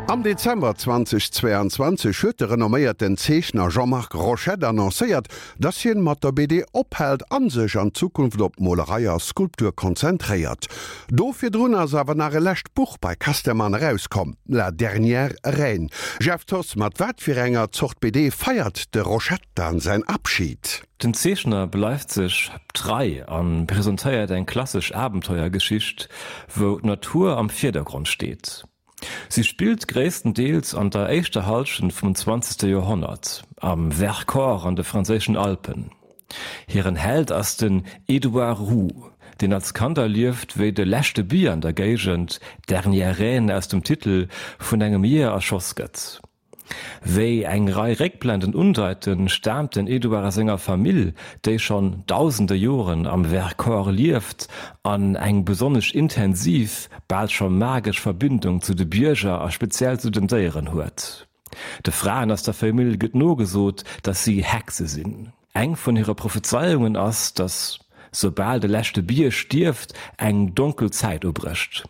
Am Dezember 2022 huet de renomméierten Zeechner Jean-Marc Rochette annoncéiert, dass hien mat der BD ophält an sech an Zukunft op Molerei a Skulptur konzentréiert. Do virdrun ass awer nach e lescht Buch bei Casterman erauskomm, La dernière reine. Jeff Thoss, mat wat fir enger Zort BD feiert de Rochette dann säin Abschid? Den Zeechner bleift sech trei a presentéiert eng klassesch Abenteuergeschicht, wou d'Natur am Virdergrond steet. Si spillt gréisstendeels an der éischter Hallschent vum zwanzegste Joerhonnert, am Vercors an de franséischen Alpen. Hiren Held ass den Edouard Roux, deen als Kand erlieft, wéi de leschte Bier an der Géigend, d'Dernière Reine aus dem Titel, vun engem Jeeër erschoss gëtt. Wéi eng Rei Réckblenden undeiten, staamt den Edouard aus enger Famill, déi schonn dausende Joren am Vercors lieft an eng besonnesch intensiv, bal scho magesch Verbindung zu de Bierger a speziell zu den Déieren huet. De Fraen aus der Famill gëtt nogesot, datt si Hexe sinn. Eng vun hire Prophezeiungen ass, datt soubal de leschte Bier stierft, eng donkel Zäit ubrécht.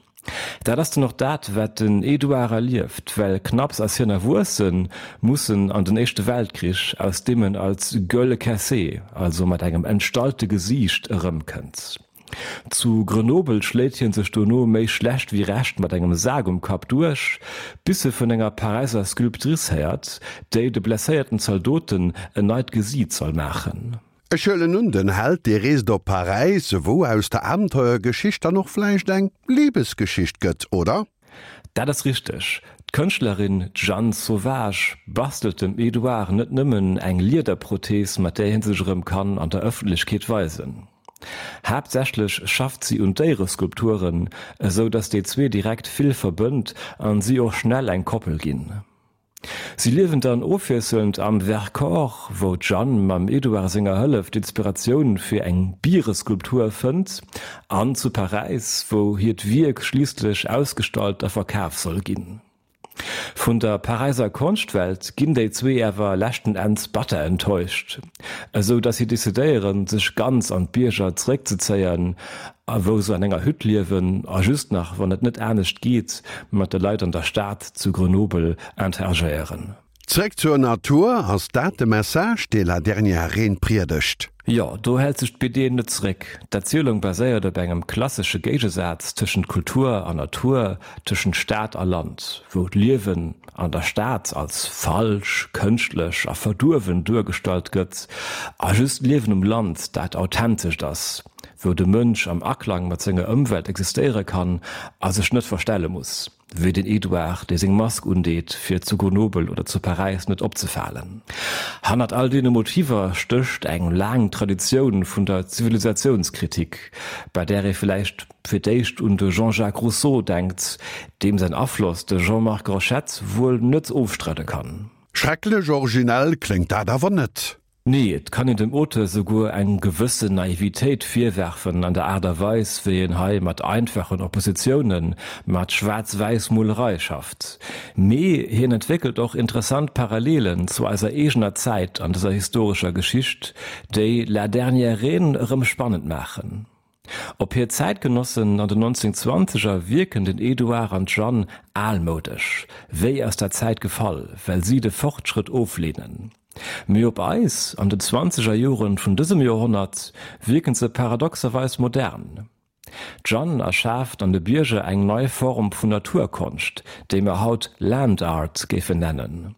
Dat ass dann och dat, wat den Edouard erlieft, well knapps ass hien erwuessen, muss en an den Éischte Weltkrich, aus deem en als gueule cassée, also mat engem entstallte Gesiicht, erëmkënnt. Zu Grenoble schléit hien sech dono méi schlecht wéi recht mat engem Sak um Kapp duerch, bis e vun enger Paräiser Sculptrice héiert, déi de blesséierten Zaldoten en neit Gesiit soll maachen. Ech huelen un, den Held, dee reest op Paräis, wou aus der Abenteuergeschicht dann och vläicht eng Libesgeschicht gëtt, oder? Dat ass richteg. D'Kënschtlerin Jeanne Sauvage bastelt dem Edouard net nëmmen eng Liederprothees, mat där hie sech erëm kann an der Ëffentlechkeet weisen. Haaptsächlech schafft si un Déiereskulpturen, esou datt déi zwee direkt vill verbënnt an si och schnell eng Koppel ginn. Si liewen dann ofwiesselnd am Vercors, wou d'Jeanne mam Edouard senger Hëllef d'Inspiratioun fir eng Biereskulptur fënnt, an zu Paräis, wou hiert Wierk schliisslech ausgestallt a verkaf soll ginn. Vun der Paräiser Konschtwelt ginn déi zwee awer leschten Enns batter enttäuscht, esou datt si decidéieren, sech ganz an d'Bierger zeréckzezéien, a wou se an enger Hütt liewen a just nach, wann et net anescht geet, mat de Leit an der Stad zu Grenoble interagéieren. Zréck zur Natur, ass dat de Message, dee La dernière Reine priedegt? Jo, do hält sech d'BD net zeréck. D'Erzielung baséiert op engem klassesche Géigesaz tëschent Kultur an Natur, tëschent Stad a Land, wou d'Liewen an der Stad als falsch, kënschtlech a verduerwen duergestallt gëtt a just d'Liewen um Land dat authentescht ass, wou de Mënsch am Aklang mat senger Ëmwelt existéiere kann a sech net verstelle muss. Wéi den Edouard, dee seng Mask undeet, fir zu Grenoble oder zu Paräis net opzefalen. Hannert all deene Motiver stécht eng laang Traditioun vun der Zivilisationskritik, bei där ee vläicht fir d'éischt un de Jean-Jacques Rousseau denkt, deem säin Afloss de Jean-Marc Rochette wuel net ofstreide kann. Schrecklech originell kléngt dat awer net. Nee, et kann een dem Auteur souguer eng gewëssen Naivitéit virwerfen an der Aart a Weis, wéi en hei mat einfachen Oppositiounen, mat schwaarz-wäiss Molerei schafft. Mee hien entwéckelt och interessant Parallelen zu eiser eegener Zäit an dëser historescher Geschicht, déi La dernière reine erëm spannend maachen. Op hir Zäitgenossen an den 1920er wierken den Edouard an d'Jeanne almoudesch, wéi aus der Zäit gefall, well si de Fortschrëtt ofleenen. Mee op eis, an den zwanzeger Joren vun dësem Joerhonnert, wierken se paradoxerweis modern. D'Jeanne erschaaft an de Bierger eng nei Form vun Naturkonscht, déi mer haut Land Art géifen nennen,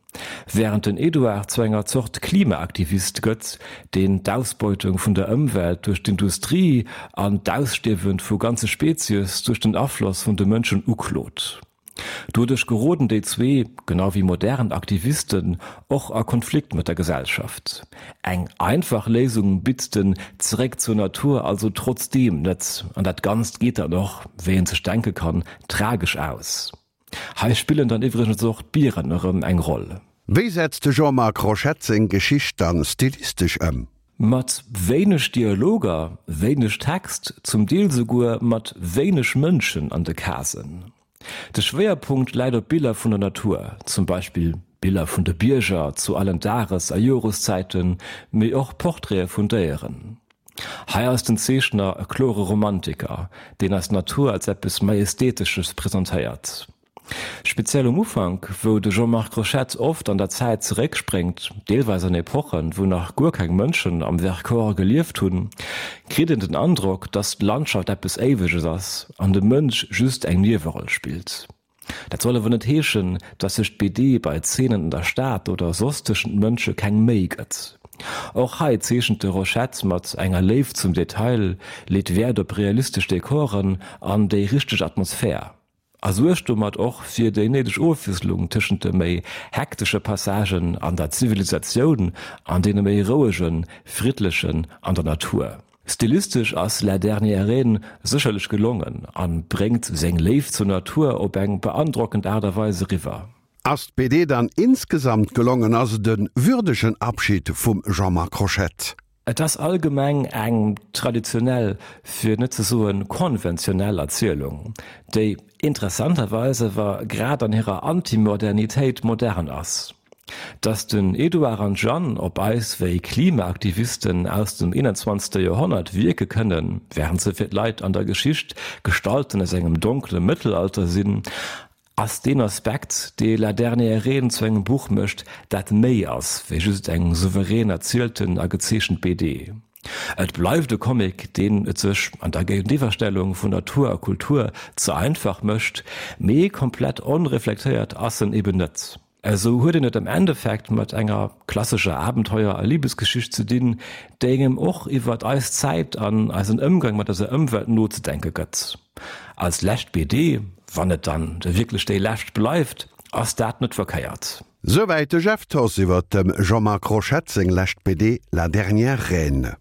wärend den Edouard zu enger Zort Klimaaktivist gëtt, deen d'Ausbeutung vun der Ëmwelt duerch d'Industrie an d'Ausstierwe vu ganze Spezies duerch den Afloss vun de Mënschen uklot. Doduerch geroden déi zwee, genau wéi modern Aktivisten, och a Konflikt mat der Gesellschaft. Eng einfach Léisung bitt den Zeréck zur Natur also trotzdeem net, an dat Ganzt geet dann och, wéi een sech denke kann, tragesch aus. Hei spillen dann iwwregens och d'Bieren erëm eng Roll. Wéi setzt de Jean-Marc Rochette seng Geschicht dann stilistesch ëm? Mat wéineg Dialoger, wéineg Text, zum Deel souguer mat wéineg Mënschen an de Casen. De Schwéierpunkt läit op Biller vun der Natur, zum Beispill Biller vun de Bierger zu allen Dages a Joreszäiten, mee och Portraite vun Déieren. Hei ass den Zeechner e klore Romantiker, deen eis d'Natur als eppes Majestätesches presentéiert. Speziell um Ufank, wou de Jean-Marc Rochette oft an der Zäit zeréckspréngt, deelweis an Epochen, wou nach guer keng Mënschen am Vercors gelieft hunn, kritt een den Androck, dass d'Landschaft eppes Éiweges ass an de Mënsch just eng Nieweroll spillt. Dat soll awer net heeschen, dass sech d'BD bei Zeenen an der Stad oder soss tëschent Mënsche keng Méi gëtt. Och hei zeechent de Rochette mat enger Léift zum Detail, leet Wäert op realistesch Dekoren an déi richteg Atmosphär. A suergt domat och fir déi néideg Ofwiesslung tëschent de méi hektesche Passagen an der Zivilisatioun an deene méi rouegen, friddlechen an der Natur. Stilistesch ass La dernière reine sécherlech gelongen a bréngt seng Léift zur Natur op eng beandrockend Aart a Weis eriwwer. Ass d'BD dann insgesamt gelongen? Ass et e würdegen Abschid vum Jean-Marc Rochette? Et ass allgemeng eng traditionell, fir net ze soen konventionell Erzielung, déi interessanterweis awer grad an hirer Antimodernitéit modern ass. Datt den Edouard an d'Jeanne op eis wéi Klimaaktivisten aus dem 21. Joerhonnert wierke kënnen, wärend se fir d'Leit an der Geschicht Gestalten aus engem donkele Mëttelalter sinn, Ass deen Aspekt, dee La dernière reine zu engem Buch mécht, dat méi ass wéi just eng souverän erzielten a gezeechent BD. Et bleift e Comic, deen et sech an der Géigeniwwerstellung vun Natur a Kultur ze einfach mécht, mee komplett onreflektéiert ass en eben net. Esou huet een et am Endeffekt mat enger klassescher Abenteuer a Libesgeschicht ze dinn, déi engem och iwwert eis Zäit an eisen Ëmgang mat eiser Ëmwelt nozedenke gëtt. Als lescht BD, wann et dann da wierklech déi lescht bleift, ass dat net verkéiert. Souwäit de Jeff Thoss iwwert dem Jean-Marc Rochette seng lescht BD La dernière reine.